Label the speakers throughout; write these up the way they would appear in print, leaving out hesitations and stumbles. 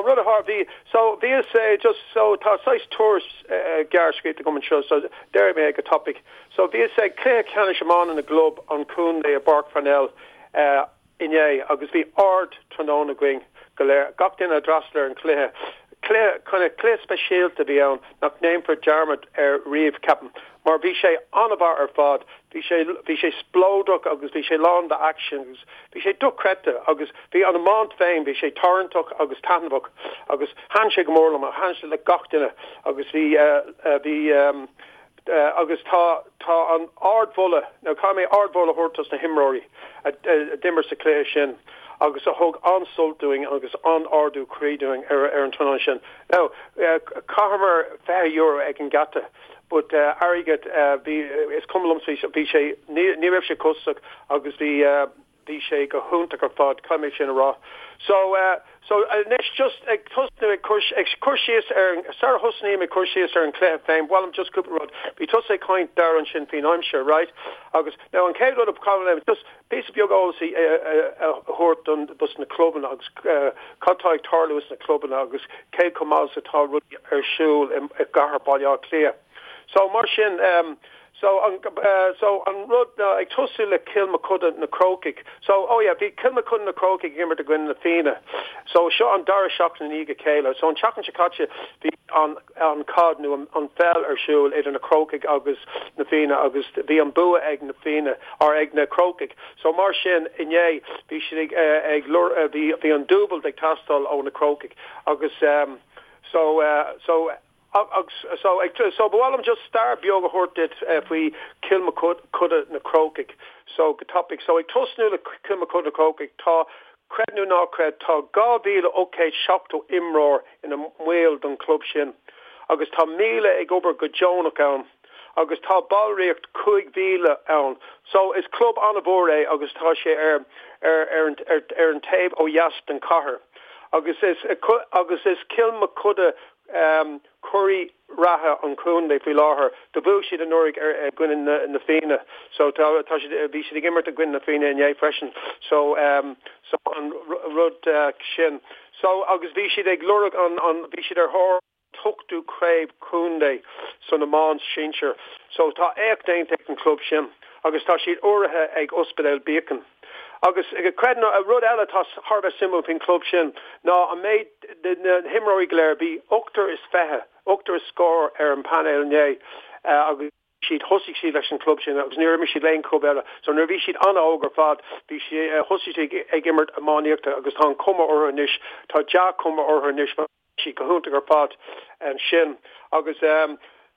Speaker 1: rud a tharla, bhí, so bhíos just, so tá saghas tuairisc gearr scríofa agam anseo, so déarfaidh mé é go tapaidh. So bhíos ag cluiche ceannais iomána na gclub an chontae i bPáirc Pharnell inné agus bhí ard tráthnóna againn go léir, gach duine a d'fhreastail ar an chluiche. Cluiche, kind of cluiche speisialta a bhí ann nach ndéanfar dearmad air riamh, ceapaim, mar bhí sé an-mhaith ar fad. Bhí sé, bhí sé spleodrach agus bhí sé lán d'aicsean agus bhí sé dochreidte agus bhí an iomáint féin, bhí sé tarraingteach agus taitneamhach agus thaitin sé go mór liom, thaitin sé le gach duine agus bhí, bhí, agus tá, tá an ardmholadh, nó caithfidh mé ardmholadh a thabhairt dos na himreoirí a d'imir sa chluiche sin agus a thug an-sult dúinn agus an-ardú croí dúinn ar an tráthnóna sin. Now, chaitheamar €20 ag an geata but airgead, bhí, is cuma liomsa, bhí sé, ní raibh sé costasach agus bhí, Bhí sé go hiontach ar fad, caithfidh mé sin a rá. So, so anois just ag tosnú ag cur, ag cur síos ar an, sara thosnaím ag cur síos ar an chluiche féin, b'mhaith liom just cúpla rud. Bhí tusa ag caint Dara ansin faoin aimsir, right? Agus now an chéad rud a caithfidh mé just píosa beag eolas a, a, a thabhairt don, dos na clubanna agus cad tá ag tarlú sna clubanna agus cé chomh maith is atá rudaí ar siúl i, i gcathair Baile Átha Cliath. So mar sin, um, So an so an rud ná ag tosú le Cill Mochuda na Crócaigh. So oh yeah bhí Cill Mochuda na Crócaigh ag imirt i gcoinne na Fianna. So seo an dara seachtain i ndiaidh a chéile. So an tseachtain seo caite bhí an an caid nó an an pheil ar siúl idir na Crócaigh agus na Fianna agus bhí an bua ag na Fianna or ag na Crócaigh. So mar sin inné bhí siad ag ag bhí bhí an dúbailt ag teastáil ó na Crócaigh agus um so so Agus so ag so ba mhaith liom just stair beag a thabhairt duit faoi Cill Mochuda na Crócaigh. So go tapaidh. So ag tosnú le Cill Mochuda na Crócaigh tá, creid nó ná creid, tá 2,870 imreoir ina mbaill don chlub sin agus tá 1,000 ag obair go deonach ann agus tá ballraíocht 5,000 ann. So is club an-mhór é agus tá sé ar ar ar an ar an taobh ó dheas den chathair. Agus is agus is Cill Mochuda Curaidh reatha an chontae faoi láthair. Do bhuaigh siad anuraidh ar i gcoinne na na Fianna. So tá tá siad bhí siad ag imirt i gcoinne na Fianna inné freisin. So so an rud sin. So agus bhí siad ag lorg an an bhí siad ar thóir an t-ochtú craobh contae san iomáint sinsir. So tá éacht déanta ag an club sin agus tá siad urraithe ag Ospidéal Beacon. Agus creid nó rud eile atá thar a bheith suimiúil faoin chlub sin ná an méid de na himreoirí go léir, bhí ochtar is fiche, ochtar is scór ar an bpainéal inné agus siad, thosaigh siad leis an chlub sin agus níor imir siad le aon chlub eile. So nuair a bhí siad an-óg ar fad, bhí siad, thosaigh siad ag imirt iománaíochta agus tá an chuma orthu anois, tá dea-chuma orthu anois. siad go hiontach ar fad ansin agus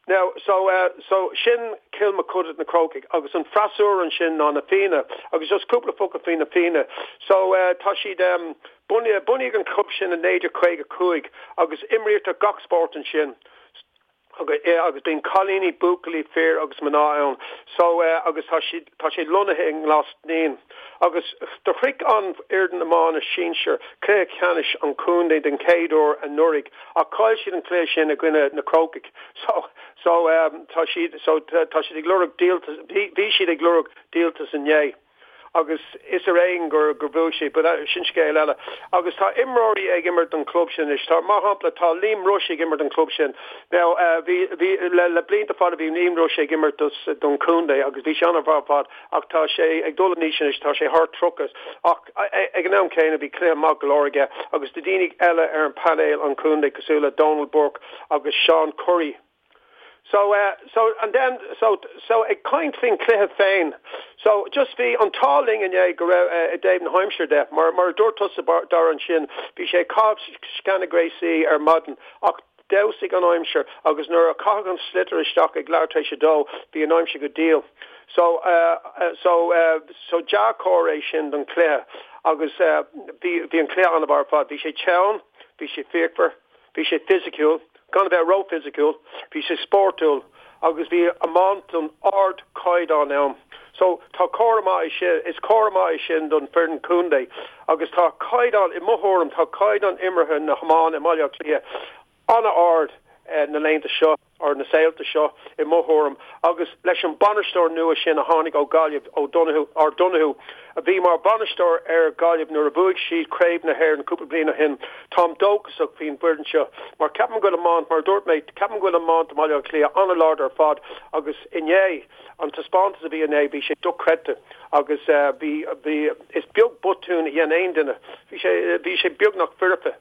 Speaker 1: now so so sin Cill Mochuda na Crócaigh agus an freasúra ansin ná na Fianna agus just cúpla focal faoi na Fianna so tá siad bunaíodh an club sin i 1955 agus imrítear gach spórt ansin. Agus bíonn cailíní, buachaillí, fir agus mná ann. So, agus tá siad, tá sé lonnaithe i nGlas Naíon. Agus do shroich an fhoireann iomána sinsir cluiche ceannais an chontae den chéad uair anuraidh ach chaill siad an cluiche sin i gcoinne na Crócaigh. So, so, tá siad, so, tá siad ag lorg díoltas, bhí, bhí siad ag lorg díoltas inné. agus is ar éigean gur gur bhuaigh siad, but sin scéal eile. Agus tá imreoirí ag imirt don chlub sin anois. Tá, mar shampla, tá Liam Rushe ag imirt don chlub sin. Now, bhí, bhí, le, le blianta fada bhí Liam Rushe ag imirt dos, don chontae agus bhí sé an-mhaith ar fad ach tá sé ag dul in aois anois, tá sé thar 30 ach ag an am céanna bhí cluiche maith go leor aige agus tá daoine eile ar an painéal an chontae cosúil le Donal Burke agus Seán Curry. So eh so and then so so ag caint faoin chluiche féin so just bhí an t-ádh linn inné go raibh eh i dtaobh na haimsire de mar mar a dúirt tusa Dara ansin bhí sé ag caitheamh sceana gréasaí ar maidin ach d'fheabhsaigh an aimsir agus nuair a caitheadh an sliotar isteach ag leathuair tar éis a dó bhí an aimsir go diail. So eh so eh so dea-chomhartha é sin don chluiche agus eh bhí bhí an cluiche an-mhaith ar fad. Bhí sé teann, bhí sé fíochmhar. Bhí sé fisiciúil, gan a bheith ró-fhisiciúil, bhí sé spórtúil agus bhí iomáint den ardchaighdeán ann. So, tá comhartha maith é sin, is comhartha maith é sin don foireann contae agus tá caighdeán, i mo thuairim, tá caighdeán imeartha na hiomána i mBaile Átha Cliath an-ard na laethanta seo. Ar na saolta seo, i mo thuairim, agus leis an bainisteoir nua sin a tháinig ó Ghaillimh, O'Donoghue, or Donoghue, a bhí mar bhainisteoir ar Ghaillimh nuair a bhuaigh siad Craobh na hÉireann cúpla bliain ó shin, táim dóchasach faoin bhfoireann seo. Mar ceapaim go bhfuil iomáint, mar a dúirt mé, ceapaim go bhfuil iomáint i mBaile Átha Cliath an-láidir ar fad agus inné, an taispeántas a bhí inné, bhí sé dochreidte agus bhí, bhí, is beag botún a dhein aon duine. Bhí sé, bhí sé beagnach foirfe.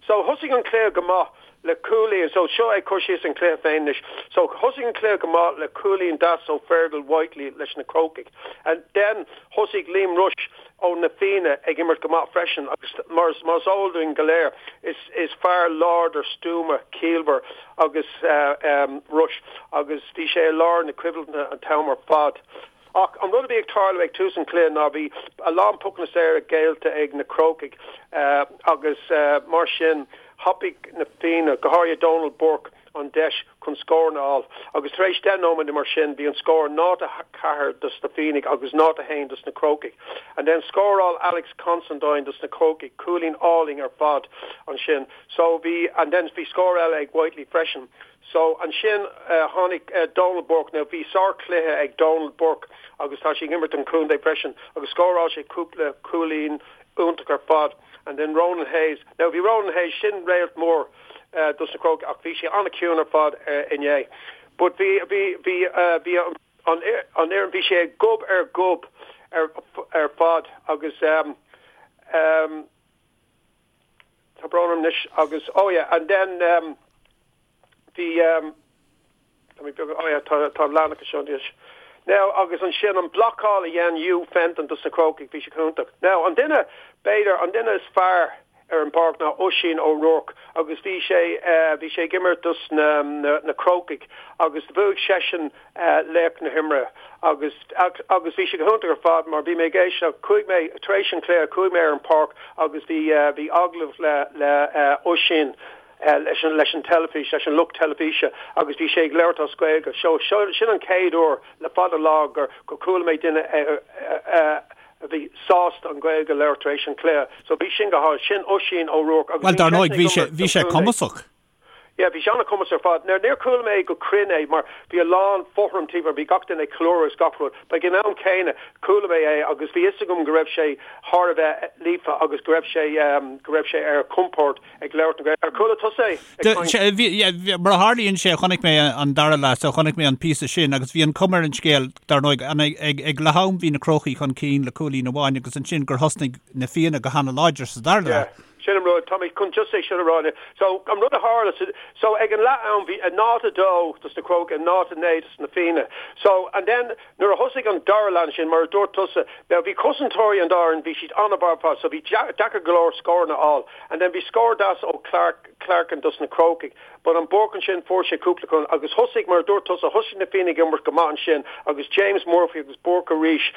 Speaker 1: So thosaigh an cluiche go maith le cúilín, so seo ag cur síos an cluiche féin anois. So thosaigh an cluiche go maith le cúilín deas ó Fergal Whitely leis na Crócaigh. And then thosaigh Liam Rushe ó na Fianna ag imirt go maith freisin agus mar is mar is eol dúinn go léir is is fear láidir stuama ciallmhar agus um Rushe agus bhí sé i lár na coimhlinte an t-am ar fad. Ach an rud a bhí ag tarlú ag tús an chluiche ná bhí a lán pocanna saora géillte ag na Crócaigh agus mar sin thapaigh na Fianna, go háirithe Donal Burke, an deis chun scóranna a fháil. Agus tar éis 10 nóiméad nó mar sin bhí an scór 0-4 dos na Fiannaigh agus 0-1 dos na Crócaigh. And then scóráil Alex Considine dos na Crócaigh, cúilín álainn ar fad ansin. So bhí, and then bhí scór eile ag Whitely freisin. So, ansin tháinig Donal Burke, now bhí sár-chluiche ag Donal Burke agus tá sé ag imirt don chontae freisin agus scóráil sé cúpla cúilín iontach ar fad. And then Ronan Hayes, now bhí Ronan Hayes, sin réalt mór dos na Crócaigh ach bhí sé an-chiúin ar fad inné. But bhí, bhí, bhí, bhí an, an fhoireann, bhí sé gob ar ghob ar, ar fad agus um, um, Tá brón orm anois agus, oh yeah, and then um, bhí, um, tá mé beag, oh yeah, tá, tá an leathanach seo anois. Now, agus ansin an blocáil a dhein Hugh Fenton dos na Crócaigh, bhí sé iontach. Now, an duine, b'fhéidir, an duine is fearr ar an bpáirc ná Oisín O'Rourke agus bhí sé, uh, bhí sé ag imirt dos na, na, na Crócaigh agus bhuaigh seisean laoch na himeartha agus agus bhí sé go hiontach ar fad mar bhí mé ag éisteacht, chuaigh mé, tar éis an chluiche, chuaigh mé ar an páirc agus bhí bhí agallamh le le Oisín leis an leis an teilifís, leis an lucht teilifíse agus bhí sé ag labhairt as Gaeilge. So sin an chéad uair le fada lá gur gur chuala mé duine a bhí sásta an Ghaeilge a labhairt tar éis an chluiche. So bhí sin go hálainn. Sin Oisín O'Rourke
Speaker 2: agus Bhuel, dar ndóigh, bhí sé bhí sé cumasach.
Speaker 1: Yeah, bhí sé an-chumasach ar fad. Now, níor chuala mé go cruinn é mar bhí a lán fothram timpeall, bhí gach duine ag ceiliúradh is gach rud. But ag an am céanna, chuala mé é agus bhí fhios agam go raibh sé thar a bheith líofa agus go raibh sé, go raibh sé ar a chompord ag labhairt na Gaeilge. Ar chuala tusa é
Speaker 2: ag caint? Bhí, yeah, mar a tharlaíonn sé, chonaic mé an dara leath, so chonaic mé an píosa sin agus bhí an cuma ar an scéal, dar ndóigh, ag, ag leath am bhí na Crócaigh chun cinn le cúilín amháin agus ansin gur thosnaigh na Fianna go hana-láidir sa dara leath.
Speaker 1: Yeah. Sin an rud, tá mé chun just é sin a rá. So, an rud a tharla, so ag an leath am bhí 0-2 dos na Crócaigh, 0-9 dos na Fianna. So, and then nuair a thosaigh an dara leath ansin, mar a dúirt tusa, now bhí cosantóirí an dá fhoireann, bhí siad an-mhaith ar fad, so bhí deacair go leor scóranna a fháil. And then bhí scór deas ó Clark, Clarkin dos na Crócaigh. But an Burke ansin fuair sé cúpla cúl agus thosaigh, mar a dúirt tusa, thosaigh na Fianna ag imirt go maith ansin agus James Murphy agus Burke arís,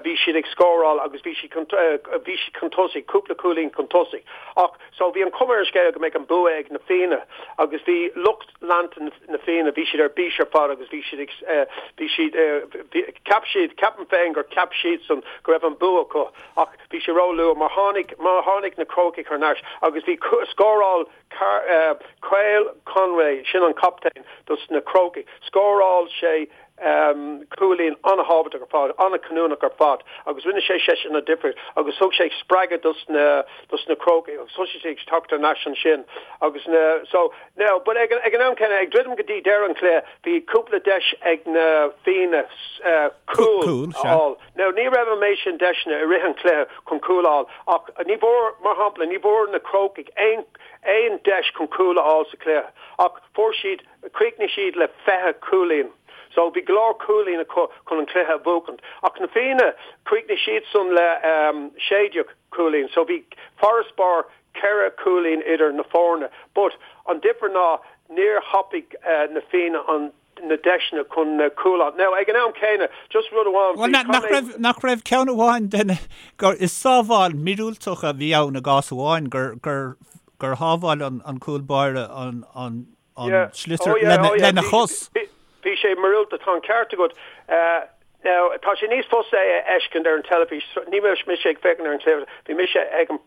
Speaker 1: bhí siad ag scóráil agus bhí siad chun, bhí siad chun tosaigh, cúpla cúilín chun tosaigh. Ach, so bhí an chuma ar an scéal go mbeadh an bua ag na Fianna agus bhí lucht leanta na Fianna, bhí siad ar bís ar fad agus bhí siad ag, bhí siad, cheap siad, ceapaim féin gur cheap siadsan go raibh an bua acu ach bhí sé ró-luath mar tháinig, mar tháinig na Crócaigh thar n-ais agus bhí scóráil Cathal Conway, sin an captaen dos na Crócaigh. Scóráil sé cúilín an-thábhachtach ar fad, an-chinniúnach ar fad agus rinne sé seisean an difríocht agus thug sé spreagadh dos na dos na Crócaigh agus thosaigh siad ag teacht thar n-ais ansin agus na so now but ag ag an am céanna ag druidim go dtí deireadh an chluiche bhí cúpla deis ag na Fianna cúl a fháil. Now ní raibh an méid sin deiseanna i rith an chluiche chun cúl a fháil ach ní bhfuair, mar shampla, ní bhfuair na Crócaigh aon aon deis chun cúl a fháil sa chluiche ach fuair siad, chríochnaigh siad le 20 cúilín. So bhí go leor cúilín acu chun an cluiche a bhuachaint. Ach na Fianna, chríochnaigh siadsan le 16 cúilín. So bhí farasbarr ceithre chúilín idir na foirne. But an difear ná níor thapaigh na Fianna an na deiseanna chun na cúil a fháil. Now, ag an am céanna, just rud amháin
Speaker 2: faoi, Bhuel, nach raibh, nach raibh ceann amháin den, gur, is sábháil míorúilteach a bhí ann i gcás amháin, gur, gur, gur shábháil an, an cúl báire an, an, an
Speaker 1: Yeah.
Speaker 2: sliotar
Speaker 1: Oh yeah,
Speaker 2: lena,
Speaker 1: oh yeah.
Speaker 2: lena
Speaker 1: Bhí,
Speaker 2: chos.
Speaker 1: bhí, bhí sé míorúilteach, tá an ceart agat. Uh. Now, tá sé níos fusa é a fheiscint ar an teilifís, ní raibh mise ag féachaint ar an chluiche, bhí mise ag an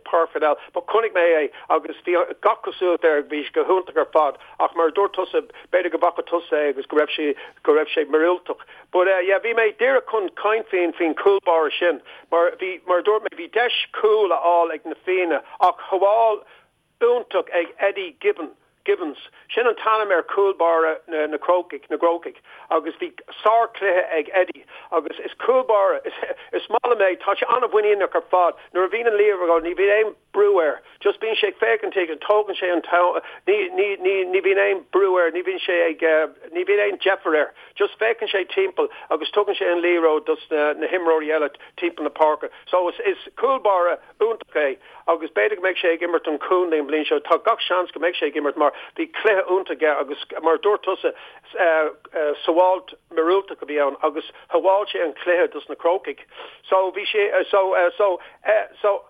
Speaker 1: Páirc Pharnell, but chonaic mé é agus bhí gach cosúlacht air, bhí sé go hiontach ar fad, ach mar a dúirt tusa, b'fhéidir go bhfaca tusa é agus go raibh sé, go raibh sé míorúilteach. But yeah, bhí mé díreach chun caint faoin, faoin chúl báire sin, mar bhí, mar a dúirt mé, bhí deis cúl a fháil ag na Fianna ach shábháil iontach ag Eddie Gibbon, Gibbons, sin an t-ainm ar chúl báire na na Crócaigh, na gCrócaigh, agus bhí sár-chluiche ag Eddie agus is cúl báire, is is maith liom é, tá sé an-mhuiníneach ar fad, nuair a bhíonn an liathróid ní bhíonn aon brú air, just bíonn sé ag féachaint agus tógann sé an t-am, ní ní ní ní bhíonn aon brú air, ní bhíonn sé ag ní bhíonn aon deifir air, just féachann sé timpeall agus tugann sé an liathróid dos na na himreoirí eile timpeall na páirce. So is is cúl báire iontach é agus b'fhéidir go mbeidh sé ag imirt don chontae an bhliain seo. Tá gach seans go mbeidh sé ag imirt mar bhí cluiche iontach aige agus mar a dúirt tusa, sábháilt míorúilteach a bhí ann agus shábháil sé an cluiche dos na Crócaigh. So bhí sé so so so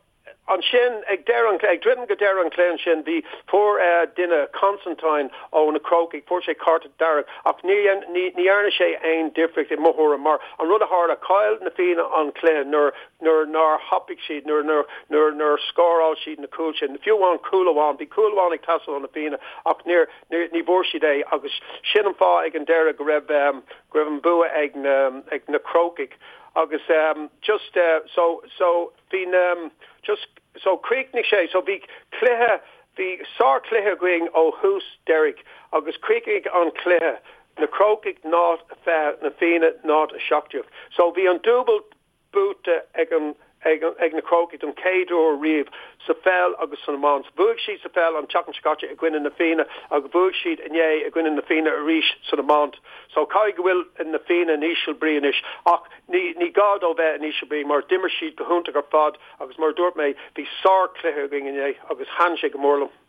Speaker 1: ansin ag deireadh an ag druidim go deireadh an chluiche ansin bhí fuair duine Constantine ó na Crócaigh fuair sé cárta dearg ach ní ní dhearna sé aon difríocht i mo thuairim mar an rud a tharla chaill na Fianna an cluiche nuair nuair nár thapaigh siad, nuair nuair nuair nár scóráil siad na cúil sin, fiú amháin cúl amháin, bhí cúl amháin ag teastáil ó na Fianna ach níor níor ní bhfuair siad é agus sin an fáth ag an deireadh go raibh go raibh an bua ag na ag na Crócaigh agus just so so bhí na just so chríochnaigh sé so bhí cluiche bhí sárchluiche againn ó thús deiridh agus chríochnaigh an cluiche na Crócaigh 0 20 na Fianna 0 17 so bhí an dúbailt buaite ag an ag an ag na Crócaigh don chéad uair riamh sa pheil agus san iomáint. Bhuaigh siad sa pheil an tseachtain seo caite i gcoinne na Fianna agus bhuaigh siad inné i gcoinne na Fianna arís san iomáint. So caithfidh go bhfuil na Fianna in íseal brí anois ach ní ní gá dóibh bheith in íseal brí mar d'imir siad go hiontach ar fad agus mar a dúirt mé bhí sár chluiche againn inné agus thaitin sé go mór liom.